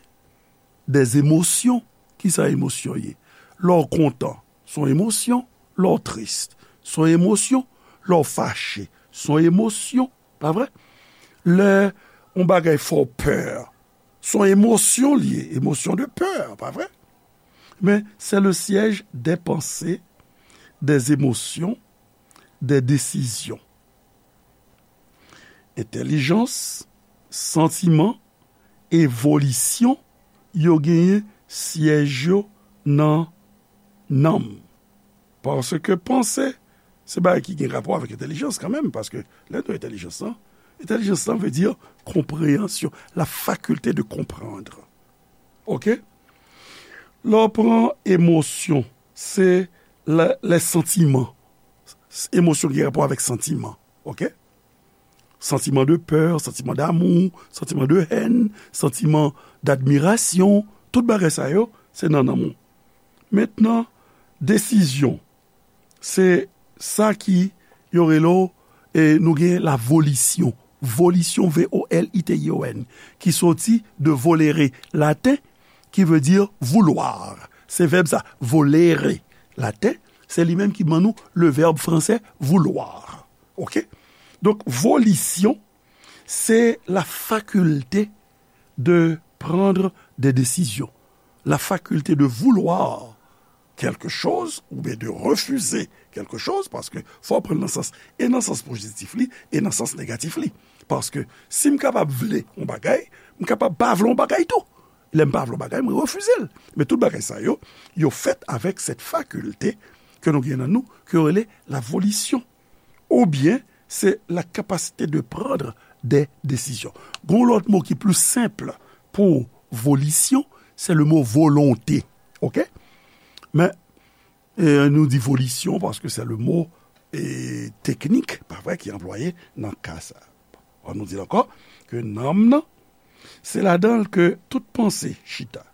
des émotions. Kisa emosyon ye? Lè w kontan, se yon emosyon. Lè w tris, se yon emosyon. Lè w fache, se yon emosyon. Pa vre? Lè yon bagay fè w pè, se yon emosyon li ye, émotion de peur, pa vre? Men, c'est le siège des pensées, des émotions, des décisions. Entèlijans, santiman, e volisyon, yo genyen syèj yo nan nanm. Paske panse, se bagay ki gen rapò avèk entèlijans kanmenm, paske lè nou entèlijans lan, entèlijans lan vle di konpreyansyon, la faculté de comprendre. Oke? Lè w pran emosyon, se lè, lè santiman. Emosyon ki gen rapò avèk santiman. Oke? Santiman de pè, santiman damou, santiman de hèn, santiman dadmirasyon, tout bagay sa yo, se nan nanm ou. Mentnan, desizyon, se sa ki yo rele w, e nou gen la volisyon. Volisyon, V O L I T I O N, ki soti de volere laten, ki vle di vouloir. Se vèb sa, volere laten, se li menm ki ban nou le vèb fransè vouloir. Oke? Donk, volisyon, se la faculté de prendre des décisions, la faculté de vouloir quelque chose ou bien de refuser quelque chose, paske fò w pran l nan sans, e nan sans pozitif li, e nan sans negatif li. Paske si m kapab vle yon bagay, m kapab pa vle yon bagay tou. Lè m pa vle yon bagay, mwen refize l. Men tout bagay sa yo, yo fèt avèk cette faculté ke nou gen nan nou, ke yo rele la volition. Oubyen, se la capacité de prendre des décisions. Gon lòt mo ki pli senp pou volisyon, se le mo volonte. Oke? Men, e, nou di volisyon paske se le mo, e, teknik, pa vre, ki anplwaye nan ka sa. An nou di l ankò, ke nanm nan, se ladan l ke tout panse chita.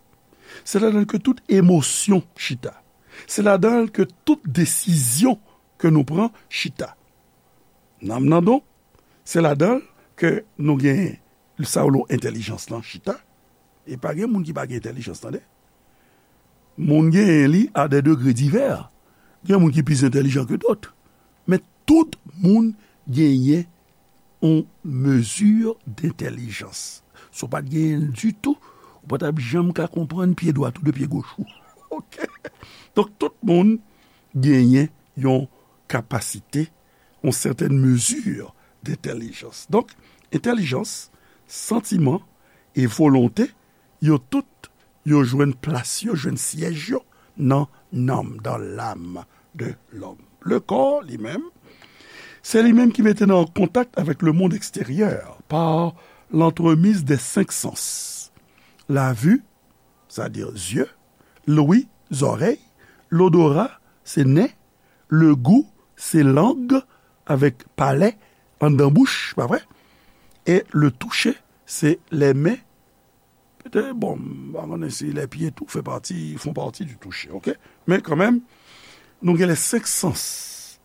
Se ladan l ke tout emosyon chita. Se ladan l ke tout desizyon ke nou pran chita. Nanm nan donk, se ladan l ke nou gen sa yo lo entèlijans lan chita. E pa gen moun ki pa gen entèlijans, tande. Moun genyen li a de degre divè. Gen moun ki plis entèlijan ke dòt. Men tout moun genyen yon mezi dentèlijans. Si w pa t genyen l ditou, ou pa t ap janm ka konprann pye dwat ou de pye goch ou. Oke? Donk, tout moun genyen yon kapasite, yon sètèn mezi dentèlijans. Donk, entèlijans, santiman e volonte, yo tout, yo jwenn plas yo, jwenn syèj yo nan nanm, dans l'âme de l'homme. Le corps, li menm, se li menm ki mete nou an kontak avèk le monde extérieur par l'entremise des cinq sens. La vue, sa di zye, l'ouïe, zòrèy, l'odorat, se nen, le goût, se lang, avèk palè, anndan bouch, pa vre? E le toucher, se les mains, petèt, bon, m pa konnen si les pieds tou fè pati, font partie du toucher, oke? Men kanmenm, nou gen les cinq sens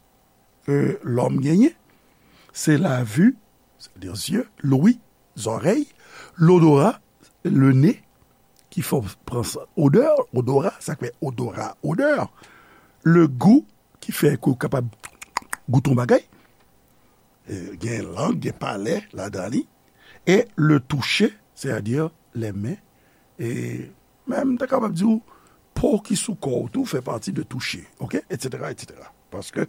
ke lòm genyen. Se la vue, c'est-à-dire zye, l'ouïe, zòrèy, l'odorat, le nez, ki fè w pran sa, odè, odorat, sa k fè odorat, odè. Le goût, ki fè ke w kapab goute yon bagay. E, gen lang, gen palè ladan li. E le toucher, c'est-à-dire les mains. E menm, m ta kapab di w, po ki sou kò w tou fè pati de toucher, oke? Etsetera, etsetera. Paske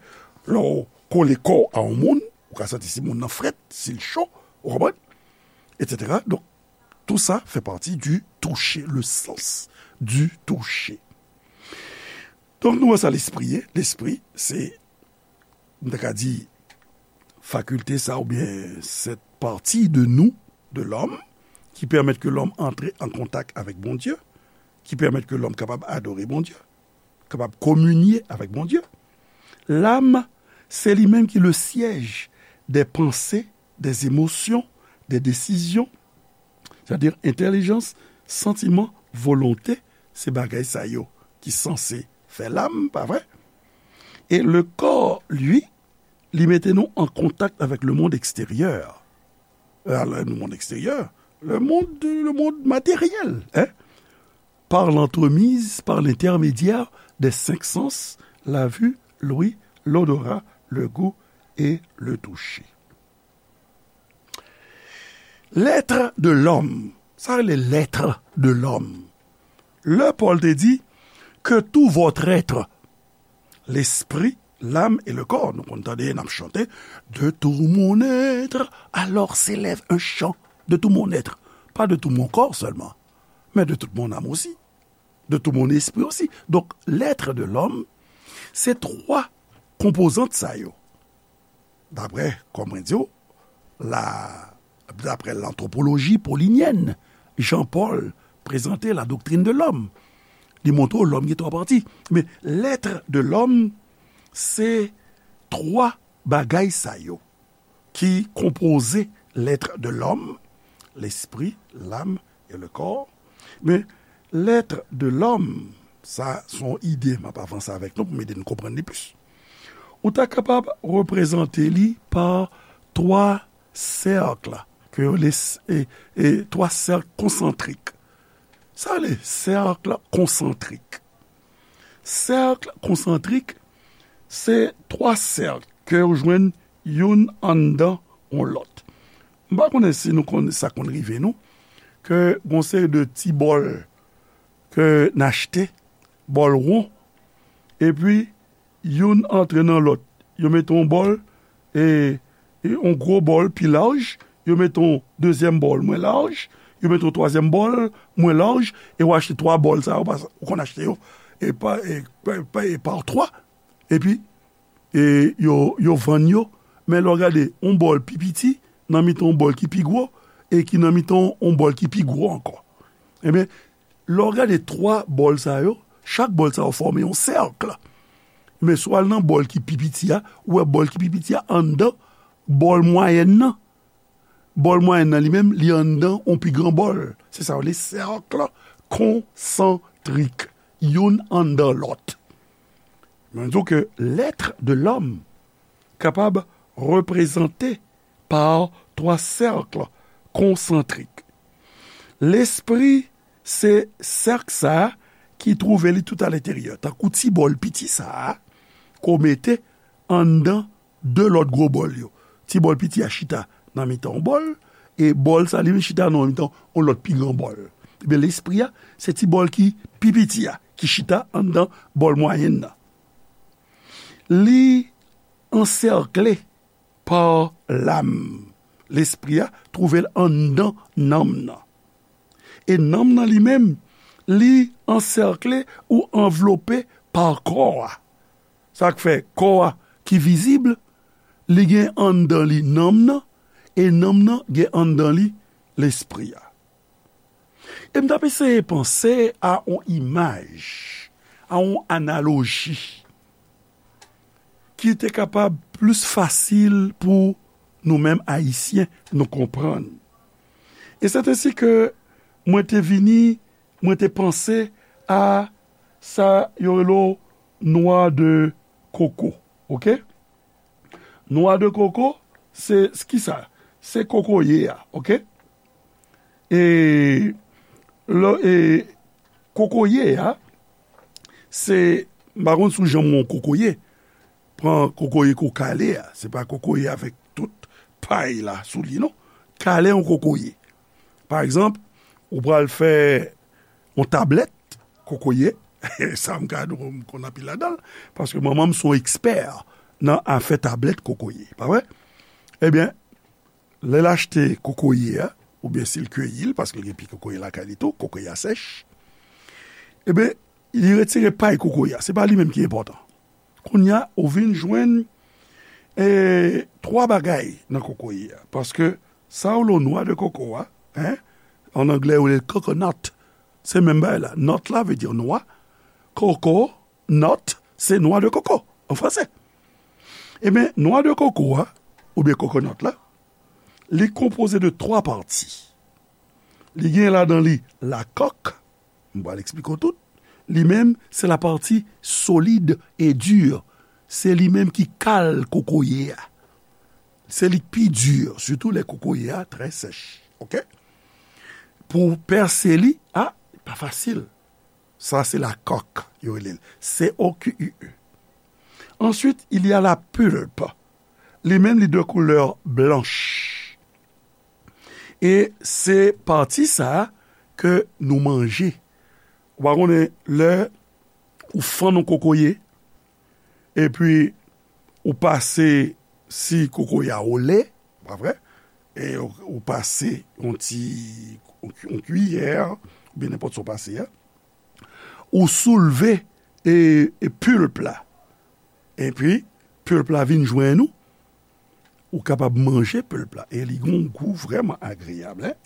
lè w kole kò w a yon moun, ou ka santi si moun nan frèt, si l cho, ou konprann? Etsetera. Donk, tout ça fait partie du toucher, le sens du toucher. Donk, nou wè sa lespri ye. Lespri, se, m ta ka di, fakilte sa oubyen cette partie de nous, de l'homme, qui permet que l'homme entre en contact avec Bondye, ki pèmèt ke lòm kapab adore Bondye, kapab kominye avèk Bondye. Lam, se li menm ki le siège des pensées, des émotions, des décisions. Sètadi, entèlijans, santiman, volonte, se bagay sa yo ki sanse fè lam, pa vre? E le corps, lui, li mete nou an kontak avèk le monde extérieur. Euh, le monde extérieur, le monde, le monde matériel, hein? Par l'entremise, par l'intermédiaire des cinq sens, la vue, l'ouïe, l'odorat, le goût et le toucher. L'être de l'homme, sa rele l'être de l'homme. Lè Pòl te di, que tout votre être, l'esprit, l'âme et le corps. Nou konn tande n ap chante, de tout mon être, alors s'élève un chant. De tout mon être. Pas de tout mon corps seulement, mais de toute mon âme aussi. De tout mon esprit aussi. Donk, l'être de l'homme, se twa konpozant sa yo. Daprè, kòm mwen di w, la, daprè l'anthropologie paulinyèn, Jean Paul prezante la doctrine de l'homme. Li montre w lòm gen twa pati. Men, l'être de l'homme, se twa bagay sa yo ki konpoze l'être de l'homme, l'esprit, l'âme et le corps. Men, l'être de l'homme, sa se yon ide m ap avanse avèk nou pou m ede n konprann li plis. Ou ta kapab reprezante li pa twa sèk ke yo les-, e, e, twa sèk konsantrik. Sa rele sèk konsantrik. Sèk konsantrik, se twa sèk ke yo jwenn youn anndan yon lòt. M pa konnen si nou konn, sa konn rive nou, ke gon seri de ti bòl ke n achte, bòl won, epi youn antre nan lòt. Yo mete yon bòl, e, e yon gwo bòl pi laj, yo mete yon dezyèm bòl mwen laj, yo mete yon twazyèm bòl mwen laj, e w achte twa bòl sa yo, pas-, ou konn achte yo, e pa, e, pa, pa, e pa twa, epi, e yo, yo vann yo, men lè w gade, yon bòl pi piti, nan mitan yon bòl ki pi gwo, e ki nan mitan yon bòl ki pi gwo ankò. Ebyen, lè w gade twa bòl sa yo, chak bòl sa yo fòme yon sèk. Men si w al nan bòl ki pi piti a, ou wè bòl ki pi piti a anndan bòl mwayèn nan. Bòl mwayèn nan li menm, li anndan yon pi gran bòl. Se sa yo rele sèk konsantrik. Youn anndan lòt. Men di w ke l'être de l'homme kapab reprezante pa twa sèk konsantrik. Lespri se sèk sa a ki twouve li tout alenteryè, tankou ti bòl piti sa a, ke w mete anndan de lòt gwo bòl yo. Ti bòl piti a chita nan mitan yon bòl, e bòl sa li menm chita nan mitan yon lòt pi gran bòl. Ebyen, lespri a, se ti bòl ki pi piti a, ki chita anndan bòl mwayèn nan. Li ansèkle pa lam. Lespri a twouve l anndan nanm nan. E nanm nan li menm, li ansèkle ou anvlope pa kò a. Sa k fè kò a ki vizib, li gen anndan li nanm nan, e nanm nan gen anndan li lespri a. E m t ap eseye panse a yon imaj, a yon analoji ki te kapab plis fasil pou nou menm Ayisyen nou konprann. E sèt ensi ke mwen te vini, mwen te panse a sa yo rele noix de coco, oke? Noix de coco, se, se ki sa? Se kokoye a, oke? E, lè, e, kokoye a, se, m pa konn si w janm wè yon kokoye, pran kokoye ke w kale a, se pa kokoye avèk tout pay la sou li, non. Kale yon kokoye. Pa egzanp, ou pral fè yon tablèt kokoye. Sa m ka di w, m konn anpil ladan l, paske manman m se yon ekspè nan afè tablèt kokoye, pa vre? Ebyen, lè l achte kokoye a, oubyen si l keyi l, paske l gen pye kokoye lakay li tou, kokoye a sèch, ebyen, li retire pay kokoye a. Se pa li menm ki enpòtan. Kounye a, ou vin jwenn, e, twa bagay nan kokoye a. Paske sa yo rele noix de coco a, en, an anglè, yo rele l coconut. Se menm bagay la. Nut la vle di nwa. Coco, nut, se noix de coco, an franse. Ebyen, noix de coco a, oubyen coconut la, li konpoze de twa pati. Li gen ladan li lakòk, m pral eksplike w tout. Li menm, se la pati solid e di. Se li menm ki kale kokoye a. Se li k pi di, sitou lè kokoye a trè sèch. Oke? Pou w pèse li, a, pa fasil. Sa se la coque, yo rele l. C O Q U E. Ensuite, il y a la pulpe. Li menm, li de koulè blanch. E se pati sa a ke nou manje. Ou pa konnen lè ou fann yon kokoye, epi ou pase si kokoye a ole, pa vre? E ou, ou pase yon ti, yon, yon kiyè, oubyen nenpòt sa w pase a. Ou soulve e, e pulp la. Epi, pulp la vin jwenn ou. Ou kapab manje pulp la. E li gen yon gou vrèman agreyab, en.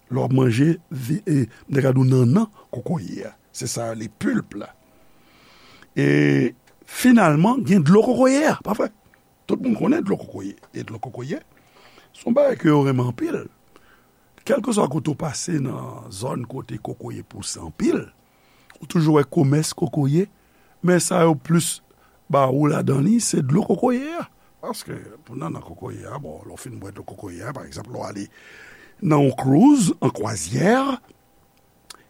Lè w ap manje vi-, e, m te ka di w nannan kokoye a. Se sa yo rele pulp la. E finalman, gen dlo kokoye a, pa vre? Tout moun konnen dlo kokoye. E dlo kokoye, se yon bagay ke yo renmen anpil. Kèlkeswa kote w pase nan zòn kote kokoye pouse anpil, ou toujou wè komès kokoye, men sa yo plis ba ou ladan li, se dlo kokoye a. Paske pou nannan kokoye a, bon, lè w fin bwè dlo kokoye a, pa egzanp, lè w ale nan yon cruise, an kwazyè,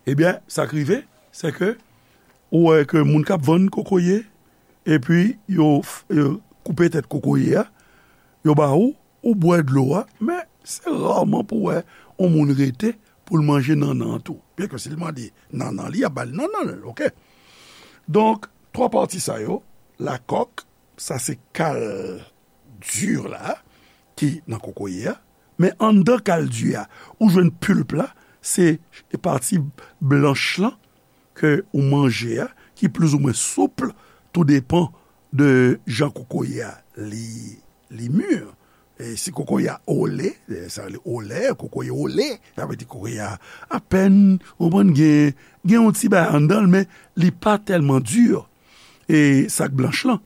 ebyen, sa k rive, se ke ou wè ke moun k ap vann kokoye, epi yo f-, yo koupe tèt kokoye a, yo ba ou, ou bwè dlo a, men se raman pou w wè yon moun rete pou l manje nannan an tou. Byenke si l mande nannan li, y ap ba l nannan l, oke? Donk, twa pati sa yo, la coque, sa se kal di la, ki nan kokoye a, men anndan kal di a, ou jwenn pulp la, se pati blanch lan, ke ou manje a, ki plizoumwen soup, tou depan de jan kokoye a li, li mi. E si kokoye a ole, e sa rele ole, kokoye ole, sa vle di kokoye a apèn, ou konprann, gen, gen yon ti bagay anndan l, men li pa tèlman di. E sa k blanch lan.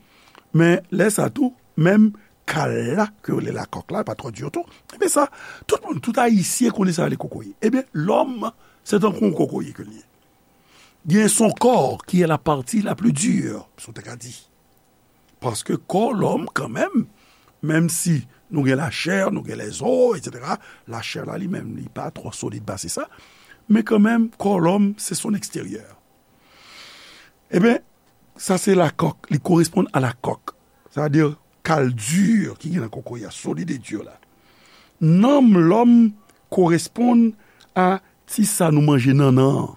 Men lè sa tou, menm kal la, ke yo rele la coque la, pa twò di tou. Ebyen sa, tout moun, tout Ayisyen konnen sa rele kokoye. Ebyen, lòm, se tankou yon kokoye ke l ye. Gen son kò ki est la partie la plus dure, si w te ka di. Paske kò lòm, kanmenm, menm si nou gen lachè, nou gen lèzo, etsetera, lachè la li menm, li pa twò solid pase sa, men kanmenm, kò lòm, se son eksteryè. Ebyen, sa se la coque, li koresponn a la coque. Sa vle di, kal di ki gen nan kokoye a, solid e di la. Nanm lòm koresponn a ti sa nou manje nannan an.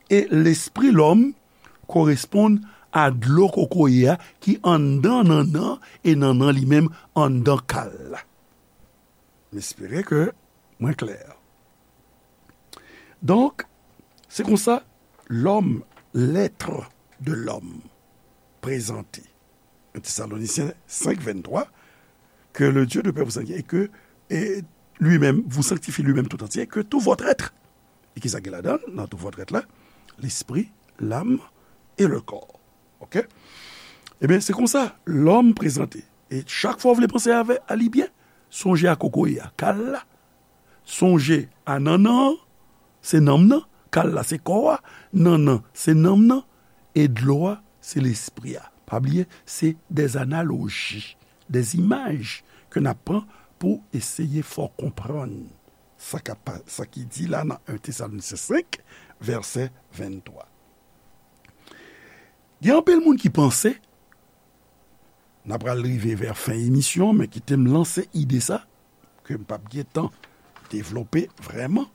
E lespri lòm koresponn a dlo kokoye a ki anndan nannan e nannan li menm anndan kal la. M espere ke mwen klè. Donk, se konsa, lòm, l'être de l'homme prezante. Un Thessaloniciens cinq, vingt-trois, que le Dieu de paix vous sanctifie et que, et lui-même, vous sanctifie lui-même tout entier, que tout votre être. E ki sa gen ladan l, nan tout votre être la? Lespri, lam e le kò. Oke? Ebyen, se konsa, lòm prezante. E chak fwa w vle panse avè, a li byen, sonje a kokoye a, kal la. Sonje a nannan an, se nanm nan, kal la se kò a, nannan se nanm nan, e dlo a se lespri a. Pa bliye, se des analogies, des images ke n ap pran pou eseye fè w konprann sa k ap pa-, sa ki di la nan un Thessaloniciens cinq, vèsè venntwa. Gen anpil moun ki panse n apral rive vè fen emisyon, men kite m lanse ide sa, ke m p ap gen tan devlope vrèman.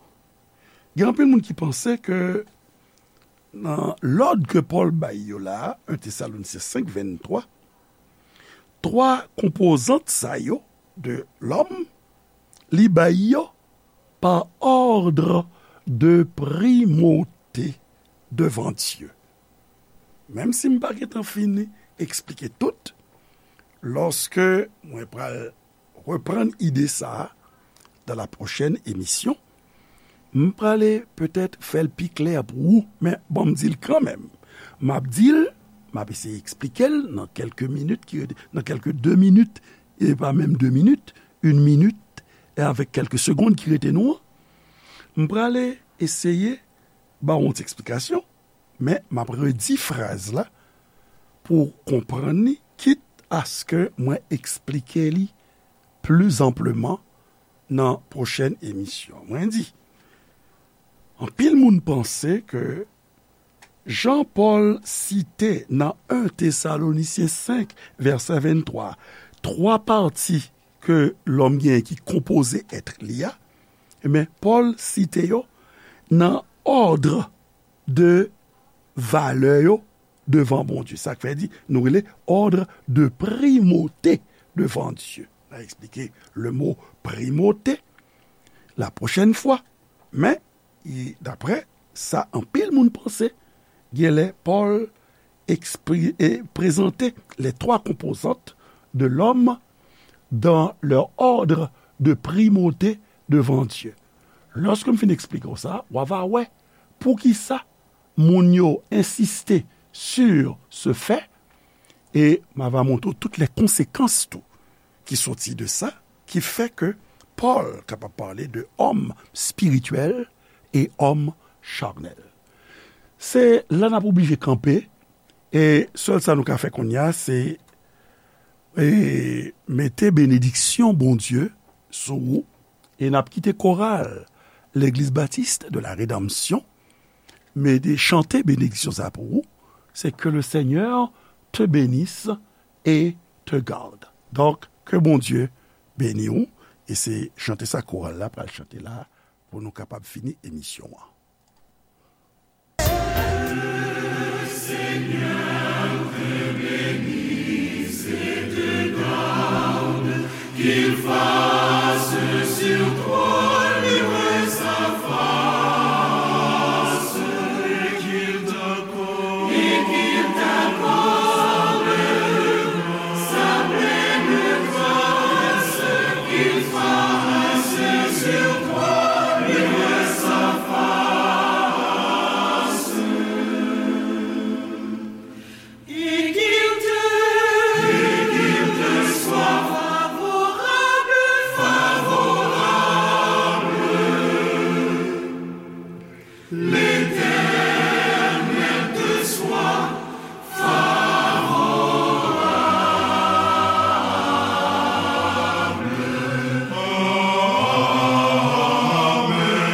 Gen anpil moun ki panse ke nan lòd ke Pòl bay yo la a, en Tesalonisyen senk venntwa, twa konpozant sa yo de lòm, li bay yo pa òdre de primòte devan Dye. Menm si m pa gentan fini eksplike tout, lòske mwen pral reprann ide sa a dans la prochaine émission, m prale petèt fè l pi klè pou ou, men bon, m di l kanmenm. M ap di l, m ap eseye eksplike l nan kèlke minit ki rete, nan kèlke de minit, e pa menm de minit, yon minit, e avèk kèlke segonn ki rete nou an, m prale eseye ba w yon ti eksplikasyon, men m ap redi fraz la pou w konprann li, kit aske mwen eksplike li pli anpleman nan pwochèn emisyon. Mwen di, anpil moun panse ke jan Pòl site nan en Tesalonisyen senk, vèsè venntwa, twa pati ke lòm genyen ki konpoze èt li a, ebyen, Pòl site yo nan òdre de valè yo devan Bondye. Sa k fè di, nou rele òdre de primòte devan Dye. N a eksplike le mo primòte la pwochèn fwa. Men, e, daprè sa anpil moun panse, genlè Pòl ekspri-, e, prezante les trois composantes de l'homme dans leur ordre de primauté devant Dieu. Lòske m fin eksplike w sa, w a va wè poukisa moun yo ensiste sur ce fait, e m a va montre w tout les conséquences tou ki soti de sa, ki fè ke Pòl kapab pale de homme spirituel e homme charnel. Se la n ap oblije kanpe, e sèl sa nou ka fè kounye a, se, e, mete benediksyon Bondye sou ou, e n ap kite koral Legliz Batis de la Redanmsyon, mete, chante benediksyon sa pou ou, c'est que le Seigneur te bénisse et te garde. Donk, ke Bondye beni w, e se chante sa koral la pral chante la pou nou kapab fini emisyon an. Qu'il fasse sur toi luire sa face, et qu'il t'accorde, et qu'il t'accorde sa pleine grâce, qu'il fasse sur toi luire sa face. Et qu'il te, et qu'il te soit favorable, favorable. L'Éternel te soit favorable. Amen.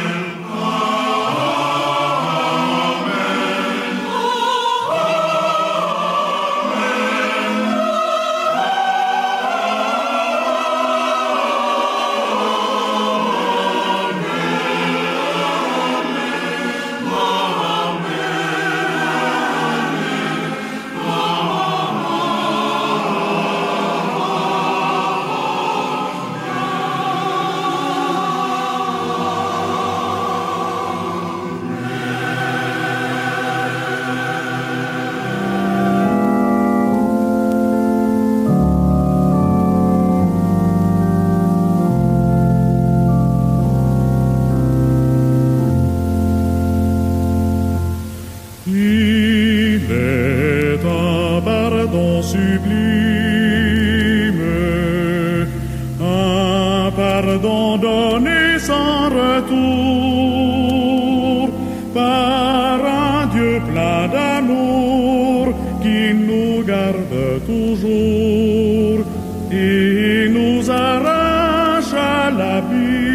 Il est un pardon sublime, un pardon donné sans retour par un Dieu plein d'amour qui nous garde toujours et nous arrache à l'abîme.